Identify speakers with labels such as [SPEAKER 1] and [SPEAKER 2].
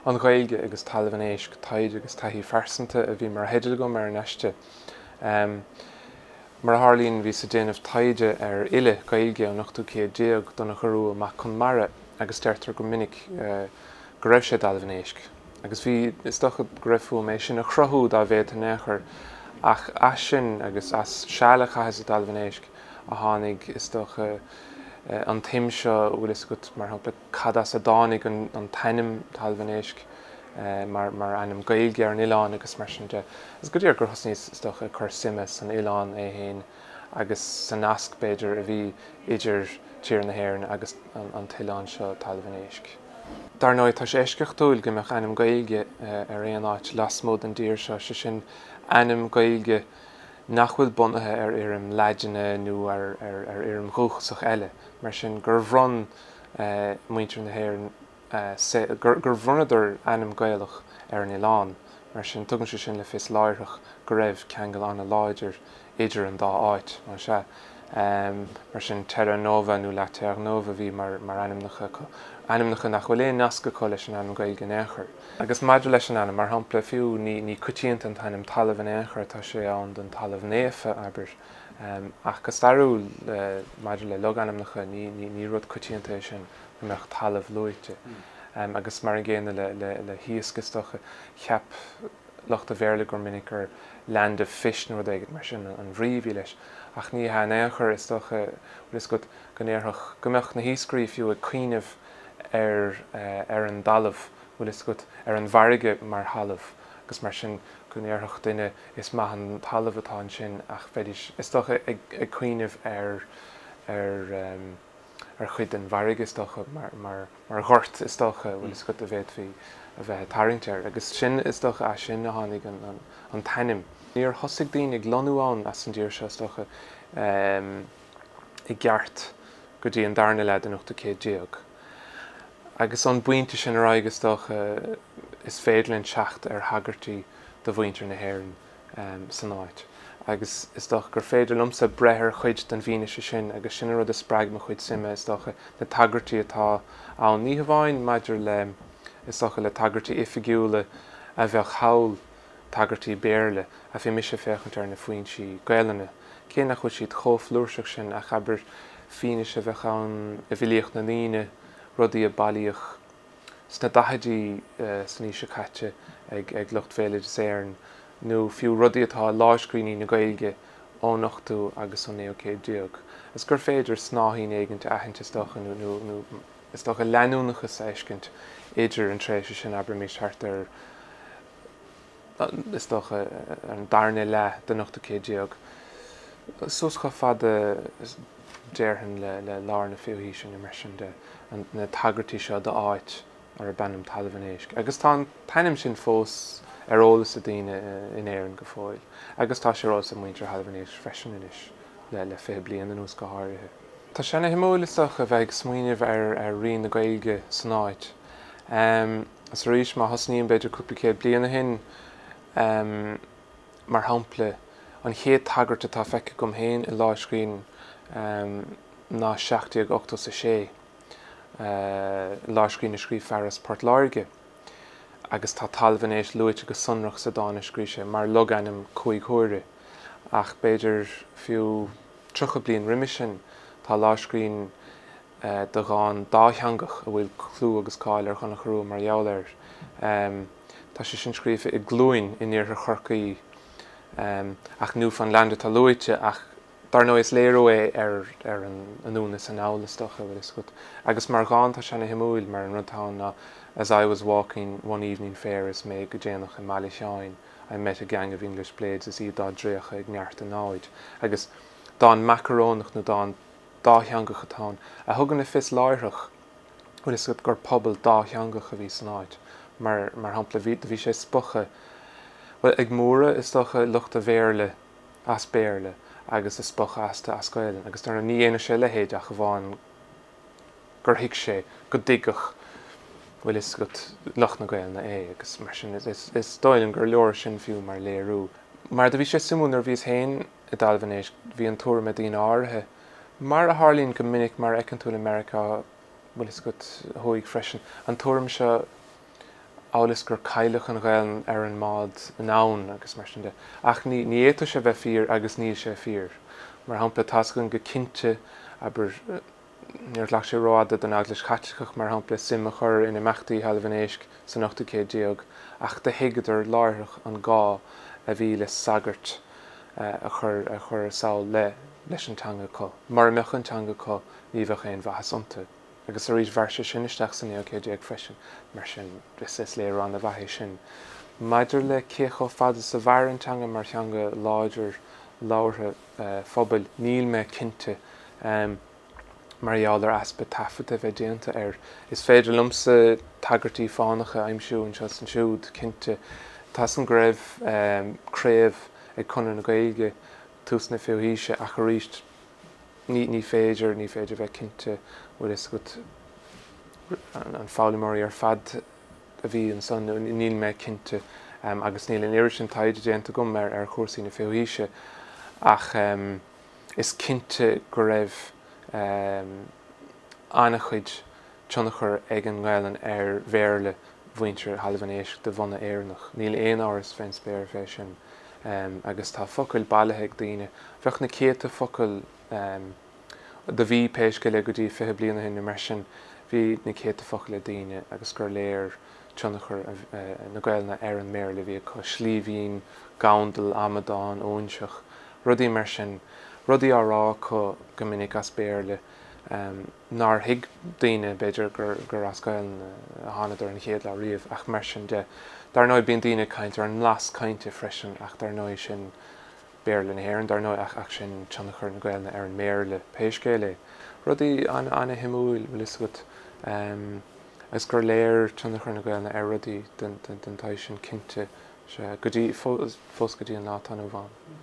[SPEAKER 1] An Ghaeilge agus Talamh an Éisc, Taighde agus Taithí Phearsanta a bhí mar theideal agam ar an aiste. Mar a tharlaíonn, bhíos ag déanamh taighde ar fhile Gaeilge ón ochtú céad déag, Donnchadh Rua Mac Conmara, agus deirtear go minic go raibh sé i dTalamh an Éisc. Agus bhí, is dócha go raibh fúm é sin a chruthú dá bhféadfainn in aon chor, ach as sin agus as seal a chaitheas i dTalamh an Éisc a tháinig, is dócha, an tsuim seo, bhfuil fhios agat, mar shampla, cad as a dtáinig an t-ainm Talamh an Éisc mar ainm Gaeilge ar an oileán agus mar sin de. Is go díreach gur thosnaíos, is dócha, ag cur suime san oileán é féin agus sa nasc, b'fhéidir, a bhí idir tír na hÉireann agus an t-oileán seo, Talamh an Éisc. Dar ndóigh, tá sé eisceachtúil go mbeadh ainm Gaeilge ar aon áit lasmuigh den dtír seo, sé sin, ainm Gaeilge nach bhfuil bunaithe ar fhoirm Laidine nó ar fhoirm dhúchasach eile. Mar sin, gur bhronn muintir na hÉireann, gur bhronnadar ainm Gaelach ar an oileán. Mar sin, tugann sé sin le fios láithreach go raibh ceangal an-láidir idir an dá áit. Más ea. Mar sin, Terra Nova nó La Terre Neuve a bhí mar ainmneacha acu, ainmneacha nach bhfuil aon nasc acu leis an ainm Gaeilge in aon chor. Agus maidir leis an ainm, mar shampla, fiú, ní coitianta an t-ainm talamh in aon chor, tá sé ann don talamh naofa, abair. Ach go stairiúil, maidir le logainmneacha, ní rud coitianta é sin go mbeadh talamh luaite. Agus mar an gcéanna le hiasc, is dócha. Cheap lucht an Bhéarla gur minic gur land of fish nó rud éigin mar sin an bhrí a bhí leis. Ach ní hea in aon chor, is dócha, bhfuil fhios agat, go ndéarfadh, go mbeadh na hiascairí fiú ag cuimhneamh ar ar an dtalamh, bhfuil fhios agat, ar an bhfarraige mar thalamh agus mar sin go ndéarfadh duine Is maith an talamh atá ansin ach bheidís, is dócha, ag cuimhneamh ar, ar, ar chuid den bhfarraige, is dócha, mar, mar, mar ghort, is dócha, bhfuil fhios agat, a bhféadfaí a bheith ag tarraingt air. Agus sin, is dócha, as sin a tháinig an, an, an t-ainm. Níor thosaigh daoine ag lonnú ann as an dtír seo, is dócha, i gceart go dtí an darna leath den ochtú céad déag. Agus ón bpointe sin ar aghaidh, is dócha, is féidir linn teacht ar thagairtí do mhuintir na hÉireann san áit. Agus is dócha gur féidir liomsa breith ar chuid den bhfianaise sin agus sin an rud a spreag mo chuid suime, is dócha, na tagairtí atá ann, ní hamháin maidir le, is dócha, le tagairtí oifigiúla a bheadh thall, tagairtí Béarla, ach bhí mise ag féachaint ar na foinsí Gaelainne, cé nach bhfuil siad chomh flúirseach sin ach, abair, fianaise a bheadh ann i bhfilíocht na ndaoine, rudaí a bailíodh sna daichidí san aois seo caite ag lucht Bhéaloideas Éireann, nó fiú rudaí atá i lámhscríbhinní na Gaeilge ón ochtú agus ón naoú céad déag, is gur féidir snáithín éigint a aithint, is dócha, nó is dócha leanúnachas a fheiscint idir an tréimhse sin, abraimis, thart ar, is dócha, an darna leath den ochtú céad déag, suas chomh fada, déarfainn, le lár na fichiú haoise nó mar sin de, na tagairtí seo d'áit arb ainm Talamh an Éisc. Agus tá an t-ainm sin fós ar eolas ag daoine in Éirinn go fóill, agus tá sé ar eolas ag muintir Thalamh an Éisc freisin anois, le 20 bliain anuas go háirithe. Tá sé ana-shuimiúil, is dócha, a bheith ag smaoineamh ar rian na Gaeilge san áit. Is arís, má thosnaím b'fhéidir cúpla céad bliain ó shin, mar shampla, an chéad tagairt atá feicthe agam féin i lámhscríbhinn ná 1786, lámhscríbhinn a scríobh fear as Port Láirge, agus tá Talamh an Éisc luaite go sonrach sa dán a scríobh sé mar logainm cúig huaire. Ach b'fhéidir fiú 30 bliain roimis sin, tá lámhscríbhinn de dhán dátheangach a bhfuil clú agus cáil ar Dhonncha Rua mar gheall air. Tá sé sin scríofa i gCluain in iarthar Chorcaí, ach Newfoundland atá luaite, ach dar ndóigh is léiriú é ar an anonn is anall, is dócha, bhfuil fhios agat. Agus mar dhán tá sé ana-shuimiúil, mar an rud atá ann ná As I was walking one evening fair is mé go déanach i mBaile Sheáin, I met a gang of English blades is iad dá dtraochadh ag neart a namhaid. Agus dán macarónach nó dán dátheangach atá ann, a thugann le fios láithreach, bhfuil fhios agat, gur pobal dátheangach a bhí san áit. Mar, mar shampla, bhí, do bhí sé spochadh, bhuel, ag móradh, is dócha, lucht an Bhéarla as Béarla agus ag spochadh astu as Gaelainn. Agus dar ndóigh, ní dhéanfadh sé a leithéid ach amháin gur thuig sé go dtuigfeadh, bhfuil fhios agat, lucht na Gaelainne é. Agus mar sin, is, is, is dóigh liom gur leor sin fiú mar léiriú. Mar do bhí sé suimiúil nuair a bhíos féin i dTalamh an Éisc, bhí an tuairim ag daoine áirithe, mar a tharlaíonn go minic, mar a fheiceann tú i Meiriceá, bhfuil fhios agat, thuaidh freisin, an tuairim seo Amhail is gur cailleadh an Ghaelainn ar an mbád anonn agus mar sin de. Ach ní ní fhéadfadh sé bheith fíor agus níl sé fíor. Mar shampla, tá's againn go cinnte, abair, níor ghlac sé rófhada don Eaglais Chaitliceach, mar shampla, suim a chur in imeachtaí Thalamh an Éisc san ochtú céad déag, ach do thuigeadar láithreach an gá a bhí le sagairt a chur a chur sall le leis an teanga acu. Mura mbeadh an teanga acu ní bheadh aon mhaitheas iontu. Agus arís, mhair sé sin isteach sa naoú céad déag freisin, mar sin is léiriú an-mhaith é sin. Maidir le cé chomh fada is a mhair an teanga mar theanga láidir labhartha phobail, níl mé cinnte, mar gheall ar easpa taifeadta a bheith déanta air. Is féidir liomsa tagairtí fánacha a aimsiú anseo is ansiúd, cinnte. Tá's agam go raibh craobh ag Conradh na Gaeilge tús na fichiú haoise ach arís, Ní, ní féidir, ní féidir bheith cinnte, bhfuil fhios agat, an foghlaimeoirí ar fad a bhí ansan, níl mé cinnte agus níl an oiread sin taighde déanta agam ar, ar chúrsaí na fichiú haoise ach is cinnte go raibh an-chuid tionchar ag an nGaelainn ar Bhéarla mhuintir Thalamh an Éisc de bhunadh Éireannach. Níl aon amhras fén spéir fé sin. Agus tá focail bailithe ag daoine. Bheadh na céadta focal, do bhí, pé scéal é, go dtí 20 bliain ó shin nó mar sin, bhí na céadta focal ag daoine agus gur léir tionchar na Gaelainne ar an mBéarla a bhí acu, slíbhín, gandal, amadán, óinseach, rudaí mar sin. Rudaí á rá acu go minic as Béarla. nár thuig daoine, b'fhéidir, gur as Gaelainn a thánadar an chéad lá riamh, ach mar sin de. Dar ndóigh, bíonn daoine ag caint ar an mblas cainte freisin, ach dar ndóigh, sin Béarla na hÉireann, dar ndóigh, ach sin tionchar na Gaelainne ar an mBéarla, pé scéal é. Rudaí an-shuimiúil, bhfuil fhios agat, agus gur léir tionchar na Gaelainne ar rudaí den tsaghas sin, cinnte, sea, go dtí, fós go dtí an lá atá inniu ann.